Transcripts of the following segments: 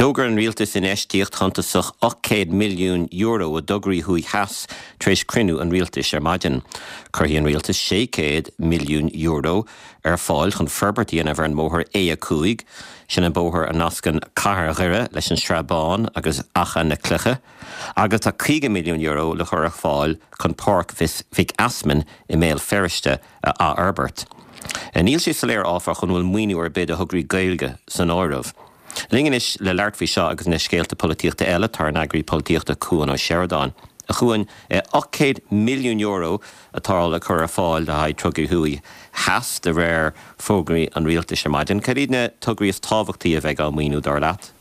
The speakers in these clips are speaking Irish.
D'fhógair an Rialtas infheistíocht shuntasach €800 milliún i dtograí thuaidh theas tar éis cruinniú an Rialtais ar maidin. Cuirfidh an Rialtas €600 milliún ar fáil chun forbairt a dhéanamh ar an mbóthar A5, sin an bóthar a nascann cathair Dhoire leis an Srath Bán agus Achadh na Cloiche, agus tá €50 milliún le cur ar fáil chun Páirc Mhic Easmainn i mBéal Feirste a athfhorbairt. Níl sé soiléir, áfach, an bhfuil maoiniú ar bith do thograí Gaeilge san áireamh. Linn anois le labhairt faoi seo agus na scéalta polaitíochta eile tá ár n-eagraí polaitíochta Cuan Ó Seireadáin. A Chuain, €800 milliún atá le cur ar fáil le haghaidh tograí thuaidh theas de réir fógraí an rialtais ar maidin. Cad iad na tograí is tábhachtaí a bheidh á maoiniú, dar leat?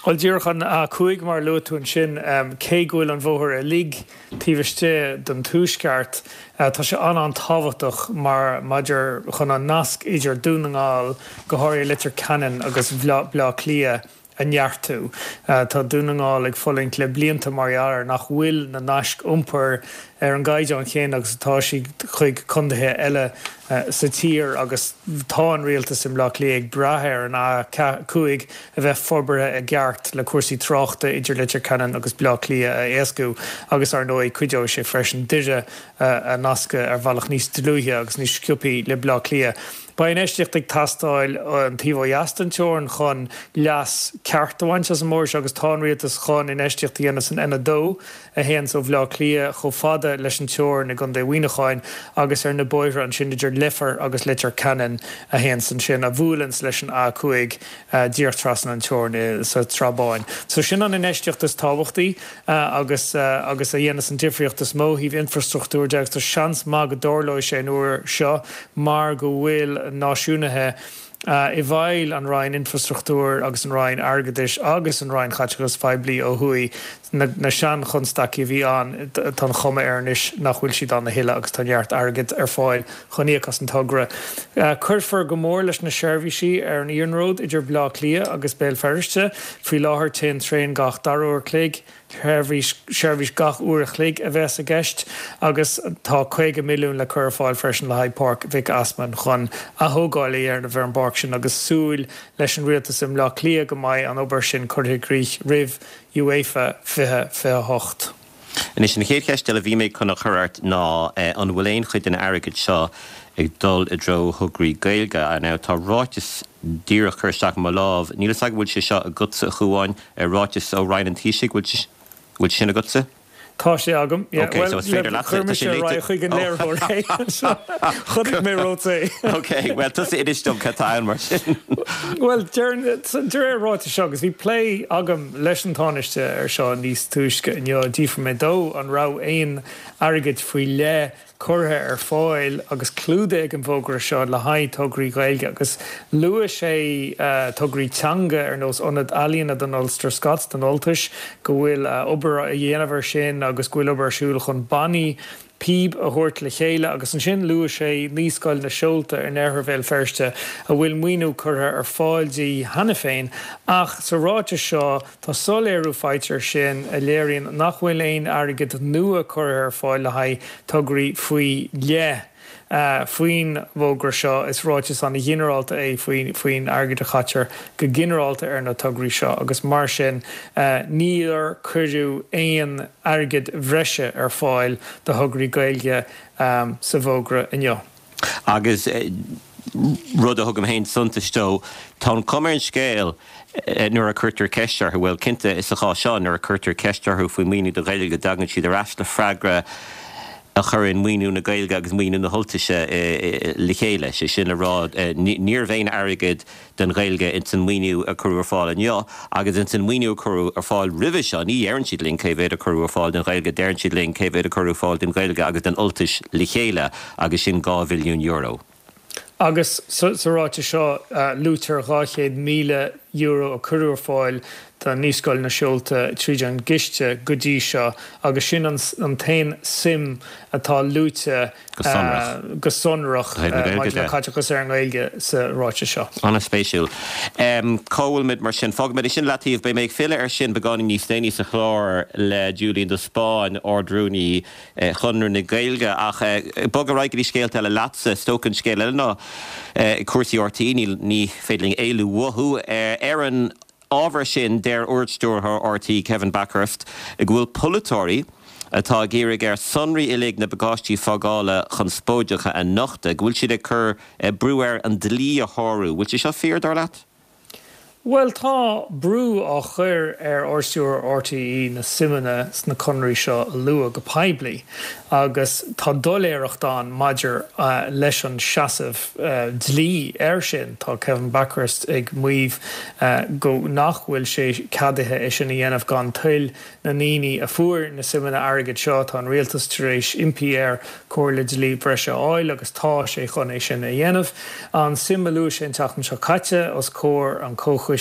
Bhuel, díreach an A5 mar a luaigh tú ansin, cé go bhfuil an bhóthar uilig taobh istigh den Tuaisceart, tá sé an-an-tábhachtach mar maidir chun an nasc idir Dún na nGall, go háirithe Leitir Ceanainn agus Baile Átha Cliath a neartú. Tá Dún na nGall ag fulaingt le blianta mar gheall ar nach bhfuil na naisc iompair ar an gcaighdeán chéanna agus atá siad chuig contaetha eile sa tír agus tá an rialtas i mBleá Cliath ag brath ar an A5 a bheith forbartha i gceart le cúrsaí tráchta idir Leitir Ceanainn agus Bleá Cliath a éascú agus, ar ndóigh, cuideoidh sé freisin Doire a nascadh ar bhealach níos dlúithe agus níos sciobthaí le Bleá Cliath. Beidh infheistíocht ag teastáil an taobh ó dheas den teorainn chun leas ceart a bhaint as an mbóthar seo agus tá an rialtas chun infheistíocht a dhéanamh san N2 a théanns ó Bhleá Cliath chomh fada leis an teorainn i gContae Mhuineacháin agus ar na bóithre ansin idir Leifear agus Leitir Ceanainn a théanns ansin, a bhuaileanns leis an A5 díreach trasna an teorainn sa tSrath Báin. So sin an infheistíocht is tábhachtaí agus agus a dhéanas an difríocht is mó ó thaobh infrastruchtúir de agus tá seans maith go dtarlóidh sé an uair seo mar go bhfuil náisiúnaithe i bhfeighil an Roinn Infrastruchtúir agus an Roinn Airgeadais agus an Roinn Chaiteachais Phoiblí ó thuaidh, na sean-chonstaicí a bhí ann, tá an chuma air anois nach bhfuil siad ann a thuilleadh agus tá neart airgid ar fáil chun íoc as an togra. Cuirfear go mór leis na seirbhísí ar an iarnród idir Baile Átha Cliath agus Béal Feirste. Faoi láthair téann traein gach dara uair chloig. Seirbhís, seirbhís gach uair a chloig a bheas i gceist agus tá 50 milliún le cur ar fáil freisin le haghaidh Páirc Mhic Easmainn chun athógáil a dhéanamh ar an bpáirc sin agus súil leis an rialtas i mBleá Cliath go mbeidh an obair sin curtha i gcrích roimh UEFA 2028. Anois, an chéad cheist eile a bhí mé chun a chur ort ná an bhfuil aon chuid den airgead seo ag dul i dtreo thograí Gaeilge? Now, tá ráiteas díreach curtha isteach i mo lámh. Níl fhios agam an bhfuil sé seo agatsa, a Chuáin, ráiteas ó Roinn an Taoisigh, bhfuil bhfuil sin agatsa? Tá sé agam, yeah. Ok, so is féidir leatsa, chuir mise ar aghaidh chuig an léiritheoir é. Chonaic mé romhat é. Ok, bhuel tusa inis dom cad tá ann mar sin. Bhuel, de réir an ráitis seo, agus bhí plé agam leis an Tánaiste ar seo níos túisce inniu, d'fhiafraigh mé dó an raibh aon airgead faoi leith curtha ar fáil agus clúdaithe ag an bhfógra seo le haghaidh tograí Gaeilge agus luaigh sé tograí teanga ar nós Ionad Ealaíona don Ulster Scots, don Ultais, go bhfuil obair á dhéanamh air sin agus go bhfuil obair ar siúl chun bannaí píob a thabhairt le chéile agus ansin luaigh sé Naíscoil na Seolta in oirthear Bhéal Feirste a bhfuil maoiniú curtha ar fáil di cheana féin ach sa ráiteas seo Tá soiléiriú faighte air sin a léiríonn nach bhfuil aon airgead nua curtha ar fáil le haghaidh tograí faoi leith faoin bhfógra seo. Is ráiteas an-ghinearálta é faoin airgead a chaitear go ginearálta ar na tograí seo agus mar sin níor cuireadh aon airgead bhreise ar fáil do thograí Gaeilge sa bhfógra inniu. Agus rud a thugaim féin suntas dó, tá an chuma ar an scéal nuair a cuirtear ceist orthu, bhuel, cinnte, sa chás seo, nuair a cuirtear ceist orthu faoi mhaoiniú do Ghaeilge, go dtagann siad ar ais le freagra a chuireann maoiniú na Gaeilge agus maoiniú na hUltaise le chéile. Sé sin le rá, ní raibh aon airgead don Ghaeilge ins an maoiniú a cuireadh ar fáil inniu agus ins an maoiniú a cuireadh ar fáil roimhe seo. Ní dheireann siad linn cé mhéad a cuireadh ar fáil don Ghaeilge, deireann siad linn cé mhéad a cuireadh ar fáil don Ghaeilge agus don Ultais le chéile agus sin €2 bhilliún. Agus sa ráiteas seo luaitear €200,000 a cuireadh ar fáil do Naíscoil na Seolta tríd an gciste go dtí seo agus sin an t-aon suim atá luaite Go sonrach. go sonrach maidir le caiteachas ar an nGaeilge sa ráiteas seo. An-spéisiúil. Cá bhfuilimid mar sin? Fágfaimid é sin i leataobh. Beidh mé ag filleadh air sin beagáinín níos déanaí sa chlár le Julian de Spáinn, Ard-Rúnaí Chonradh na Gaeilge. Ach bog ar aghaidh go dtí scéalta eile leatsa. Is dócha an scéal eile ná cúrsaí RTÉ. Ní féidir linn éalú uathu. Ar an. ábhar sin, deir Ard-Stiúrthóir RTÉ, Kevin Bakhurst, go bhfuil polaiteoirí atá ag iarraidh air sonraí uilig na bpacáistí fágála conspóideacha a nochtadh, go bhfuil siad ag cur brú air an dlí a shárú. Bhfuil sé seo fíor, dar leat? Bhuel, tá brú á chur ar Ardstiúrthóir RTÉ na suimeanna sna conarthaí seo a lua go poiblí agus tá doiléireacht ann maidir leis an seasamh dlí air sin. Tá Kevin Bakhurst ag maíomh go nach bhfuil sé ceadaithe é sin a dhéanamh gan toil na ndaoine a fuair na suimeanna airgid seo. Tá an rialtas tar éis impí air comhairle dlí breise a fháil agus tá sé chun é sin a dhéanamh. An suim a luaigh sé an tseachtain seo caite os comhair an Chomhchoiste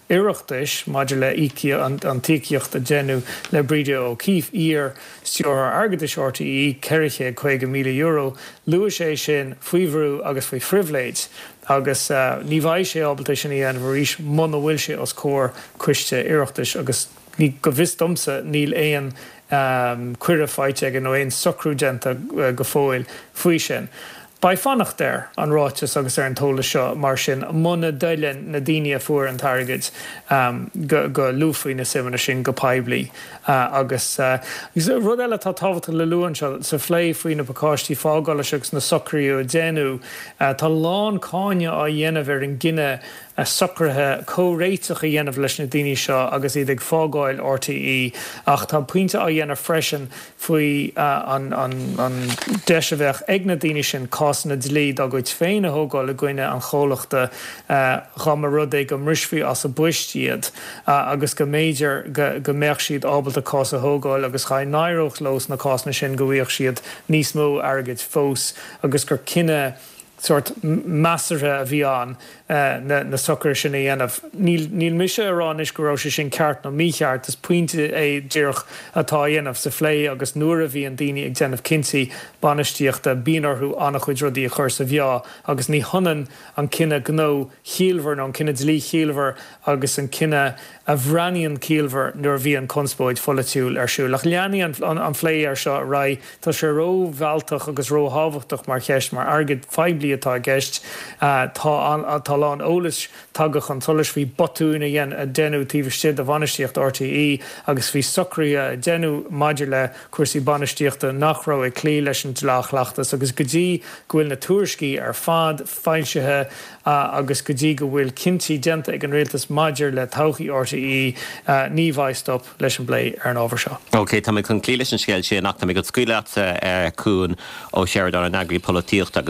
Oireachtais maidir le an t-íocaíocht a deineadh le Breda O'Keeffe, iar Stiúrthóir Airgeadais RTÉ, €450,000, luaigh sé sin faoi bhrú agus faoi phribhléid agus ní bheidh sé ábalta é sin a dhéanamh arís muna bhfuil sé os comhair coiste Oireachtais agus Ní, go bhfios domsa, níl aon cuireadh faighte aige nó aon socrú déanta go fóill faoi sin. Beidh fanacht ar an ráiteas agus ar an t-eolas seo mar sin muna dtoileann na daoine a fuair an t-airgead go go luafaí na suimeanna sin go poiblí. Agus rud eile atá tábhachtach le lua anseo, sa phlé faoi na pacáistí fágála seo agus na socruithe a déanadh, tá a lán cáineadh á dhéanamh ar an gcinneadh socruithe comhréiteach a dhéanamh leis na daoine seo agus iad ag fágáil RTÉ ach tá pointe á dhéanamh freisin faoi an deis a bheadh ag na daoine sin cásanna dlí dá gcuid féin a thógáil i gcoinne an chomhlachta dá mba rud é go mbrisfí as a bpoist iad agus go mb'fhéidir go mbeadh siad ábalta cás a thógáil agus dá n-éireodh leo sna cásanna sin go bhfaigheadh siad níos mó airgid fós agus gur cinneadh sórt measartha a bhí ann na socruithe sin a dhéanamh. Níl, níl mise ag rá anois go raibh sé sin ceart nó mícheart, is pointe é díreach atá á dhéanamh sa phlé agus nuair a bhíonn daoine ag déanamh cinntí bainistíochta bíonn orthu an-chuid rudaí a chur sa mheá agus ní hionann an cinneadh gnó chiallmhar nó an cinneadh dlí chiallmhar agus an cinneadh a bhreathnaíonn ciallmhar nuair a bhíonn conspóid pholaitiúil ar siúl. Ach leanfaidh an plé air seo ar aghaidh. Tá sé ró-mhealltach agus ró-thábhachtach mar cheist, mar airgead phoiblí atá i gceist. Tá tá a lán eolais tagtha chun solais faoi botúin a deineadh taobh istigh de bhainistíocht RTÉ agus faoi socruithe a deineadh maidir le cúrsaí bainistíochta nach raibh ag cloí leis an dleá-chleachtas agus go dtí go bhfuil na tuairiscí ar fad foilsithe agus go dtí go bhfuil cinntí déanta ag an rialtas maidir le todhchaí RTÉ, ní bheidh stop leis an bplé ar an ábhar seo. OK, tá mé chun cloí leis an scéal sin ach tá mé chun scaoileadh leatsa, Cuan Ó Seireadáin, an eagraí polaitíochta.